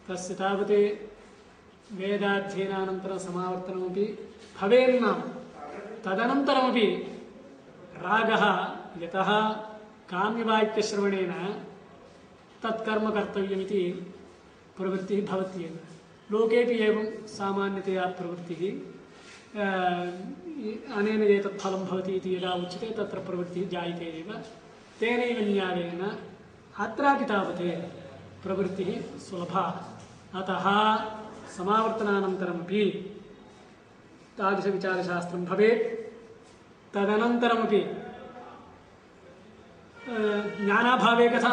तस्य तावत् वेदाध्ययनानन्तरं समावर्तनमपि भवेन्नाम तदनन्तरमपि रागः यतः काम्यवाक्यश्रवणेन तत्कर्म कर्तव्यमिति प्रवृत्तिः भवत्येव। लोकेपि एवं सामान्यतया प्रवृत्तिः अनेन एतत् फलं भवति इति यदा उच्यते तत्र प्रवृत्तिः जायते एव। तेनैव न्यायेन अत्रापि तावत् प्रवृत्तिः सुलभा। अतः समावर्तनानन्तरमपि तादृशविचारशास्त्रं भवेत्। तदनन्तरमपि ज्ञानाभावे कथा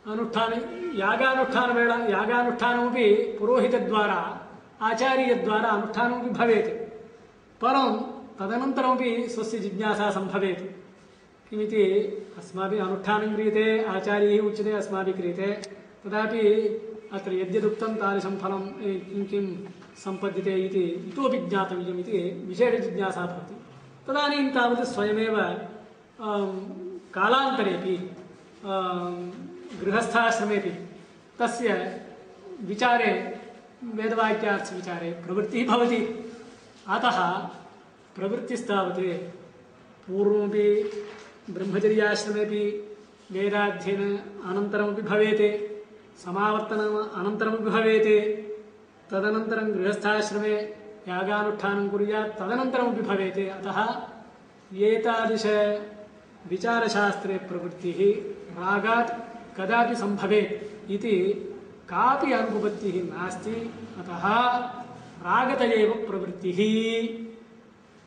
अनुष्ठाने यागानुष्ठानमपि पुरोहितद्वारा आचार्यद्वारा अनुष्ठानमपि भवेत्। परं तदनन्तरमपि स्वस्य जिज्ञासा सम्भवेत्। किमिति अस्माभिः अनुष्ठानं क्रियते, आचार्यैः उच्यते, अस्माभिः क्रियते, तदापि अत्र यद्यदुक्तं तादृशं फलं किं सम्पद्यते इति इतोपि ज्ञातव्यम् इति विशेषजिज्ञासा भवति। तदानीं तावत् स्वयमेव कालान्तरेपि गृहस्थाश्रमेपि तस्य विचारे वेदवाक्यार्थविचारे प्रवृत्तिः भवति। अतः प्रवृत्तिस्तावत् पूर्वमपि ब्रह्मचर्याश्रमेपि वेदाध्ययन अनन्तरमपि भवेत्, समावर्तनम् अनन्तरमपि भवेत्, तदनन्तरं गृहस्थाश्रमे यागानुष्ठानं कुर्यात् तदनन्तरमपि भवेत्। अतः एतादृश विचारशास्त्रे प्रवृत्तिः रागात् कदापि सम्भवेत् इति कापि अनुपपत्तिः नास्ति। अतः रागत एव प्रवृत्तिः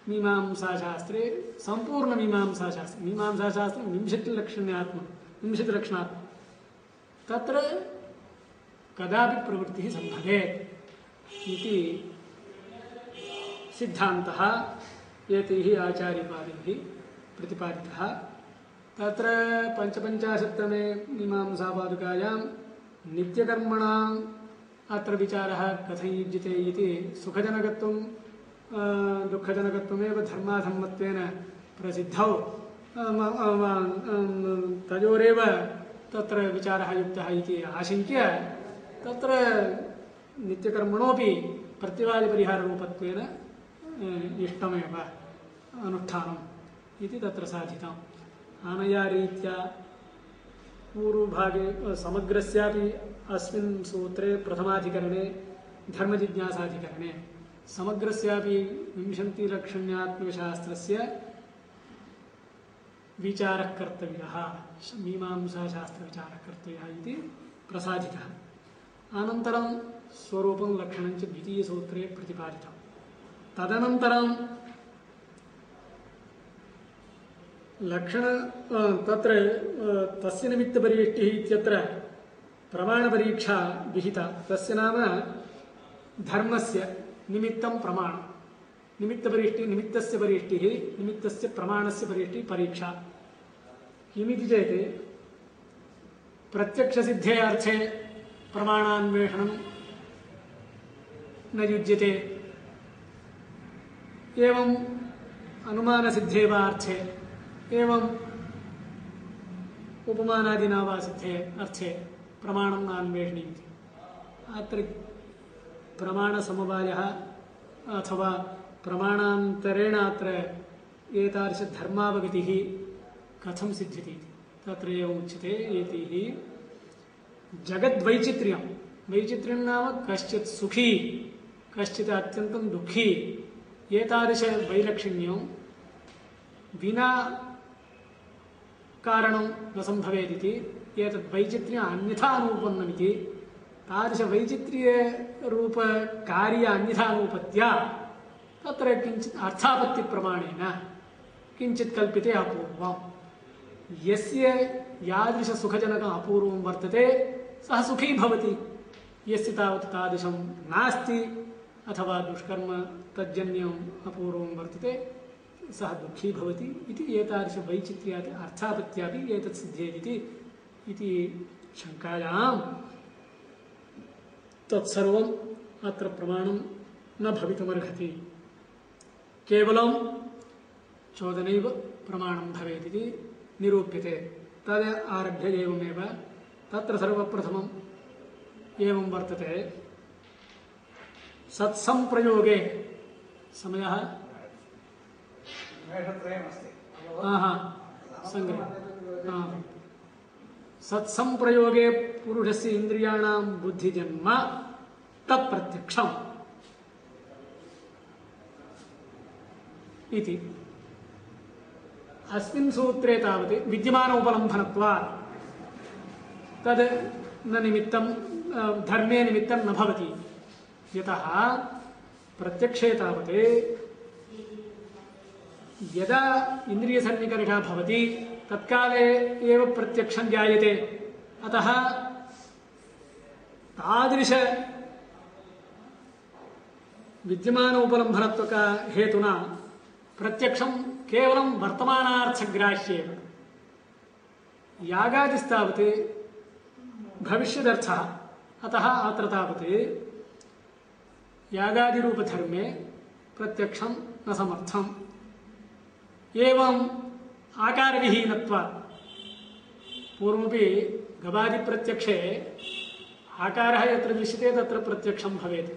मीमांसाशास्त्रे सम्पूर्णमीमांसाशास्त्रे। मीमांसाशास्त्रे 20 लक्षणात्मकं तत्र कदापि प्रवृत्तिः सम्भवेत् इति सिद्धान्तः एतैः आचार्यपादैः प्रतिपादितः। तत्र 55तमे मीमांसापादुकायां नित्यकर्मणाम् अत्र विचारः कथं युज्यते इति सुखजनकत्वं दुःखजनकत्वमेव धर्माधर्मत्वेन प्रसिद्धौ तयोरेव तत्र विचारः युक्तः इति आशङ्क्य तत्र नित्यकर्मणोपि प्रत्यवादिपरिहाररूपत्वेन इष्टमेव अनुष्ठानम् इति तत्र साधितम्। अनया रीत्या पूर्वभागे समग्रस्यापि अस्मिन् सूत्रे प्रथमाधिकरणे धर्मजिज्ञासाधिकरणे समग्रस्यापि 20लक्षण्यात्मकशास्त्रस्य विचारः कर्तव्यः, मीमांसाशास्त्रविचारः कर्तव्यः इति प्रसादितः। अनन्तरं स्वरूपं लक्षणं च द्वितीयसूत्रे प्रतिपादितं। तदनन्तरं लक्षण तत्र तस्य निमित्तपरिवेष्टिः इत्यत्र प्रमाणपरीक्षा विहिता। तस्य नाम धर्मस्य निमित्तं प्रमाणं, निमित्तस्य परिवेष्टिः, निमित्तस्य प्रमाणस्य परिवेष्टिः परीक्षा। किमिति चेत् प्रत्यक्षसिद्धे अर्थे प्रमाणान्वेषणं न युज्यते, एवं अनुमानसिद्धे वा अर्थे, एवं उपमानादिना वा सिद्धे अर्थे प्रमाणं नान्वेषणीयमिति। अत्र प्रमाणसमवायः अथवा प्रमाणान्तरेण अत्र एतादृशधर्मावगतिः कथं सिद्ध्यति इति तत्र एवम् उच्यते। एतैः जगद्वैचित्र्यं, वैचित्र्यं नाम कश्चित् सुखी कश्चित् अत्यन्तं दुःखी, एतादृशवैलक्षण्यं विना कारणं न सम्भवेदिति, एतद् वैचित्र्यम् अन्यथा अनुपन्नमिति, तादृशवैचित्र्यरूपकार्य अन्यथानुपत्या तत्र किञ्चित् अर्थापत्तिप्रमाणेन किञ्चित् कल्प्यते अपूर्वम्। यस्य यादृशसुखजनकम् अपूर्वं वर्तते सः सुखी भवति, यस्य तावत् तादृशं नास्ति अथवा दुष्कर्म तज्जन्यम् अपूर्वं वर्तते सः दुःखी भवति इति एतादृशवैचित्र्यात् अर्थापत्यापि एतत् सिद्ध्येदिति इति शङ्कायां तत्सर्वम् अत्र प्रमाणं न भवितुमर्हति, केवलं चोदनैव प्रमाणं भवेदिति निरूप्यते। तद् आरभ्य एवमेव तत्र सर्वप्रथमम् एवं वर्तते सत्संप्रयोगे समयः संग्रह सत्संप्रयोगे पुरुषस्य इंद्रियाणां बुद्धिजन्म तत्प्रत्यक्षम् इति अस्मिन् सूत्रे तावत् विद्यमान उपलम्भनत्वात् तद् न निमित्तं धर्मे निमित्तं न भवति यतः प्रत्यक्षे तावत् यदा इन्द्रियसन्निकर्षः भवति तत्काले एव प्रत्यक्षं जायते अतः तादृश विद्यमान उपलम्भनत्वक हेतुना प्रत्यक्षं केवलं वर्तमानार्थग्राह्येव यागादिस्तावत् भविष्यदर्थः अतः अत्र तावत् यागादिरूपधर्मे प्रत्यक्षं न समर्थम् एवं आकारविहीनत्वात् पूर्वमपि गवादिप्रत्यक्षे आकारः यत्र दृश्यते तत्र प्रत्यक्षं भवेत्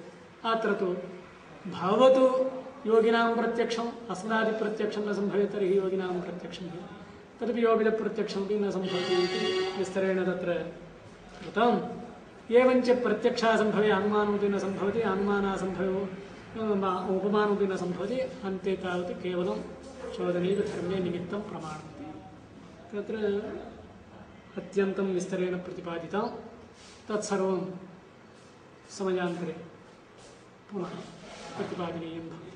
अत्र तु भवतु योगिनां प्रत्यक्षम् अस्मदादिप्रत्यक्षं न सम्भवेत् तर्हि योगिनां प्रत्यक्षं तदपि योगिनप्रत्यक्षमपि न सम्भवति इति विस्तरेण तत्र कृतम् एवञ्च प्रत्यक्षासम्भवे अनुमानमपि न सम्भवति अनुमानासम्भवो उपमानमपि न सम्भवति अन्ते तावत् केवलं चोदनैव धर्मे निमित्तं प्रमाणमति तत्र अत्यन्तं विस्तरेण प्रतिपादितं तत्सर्वं समयान्तरे पुनः प्रतिपादनीयं भवति।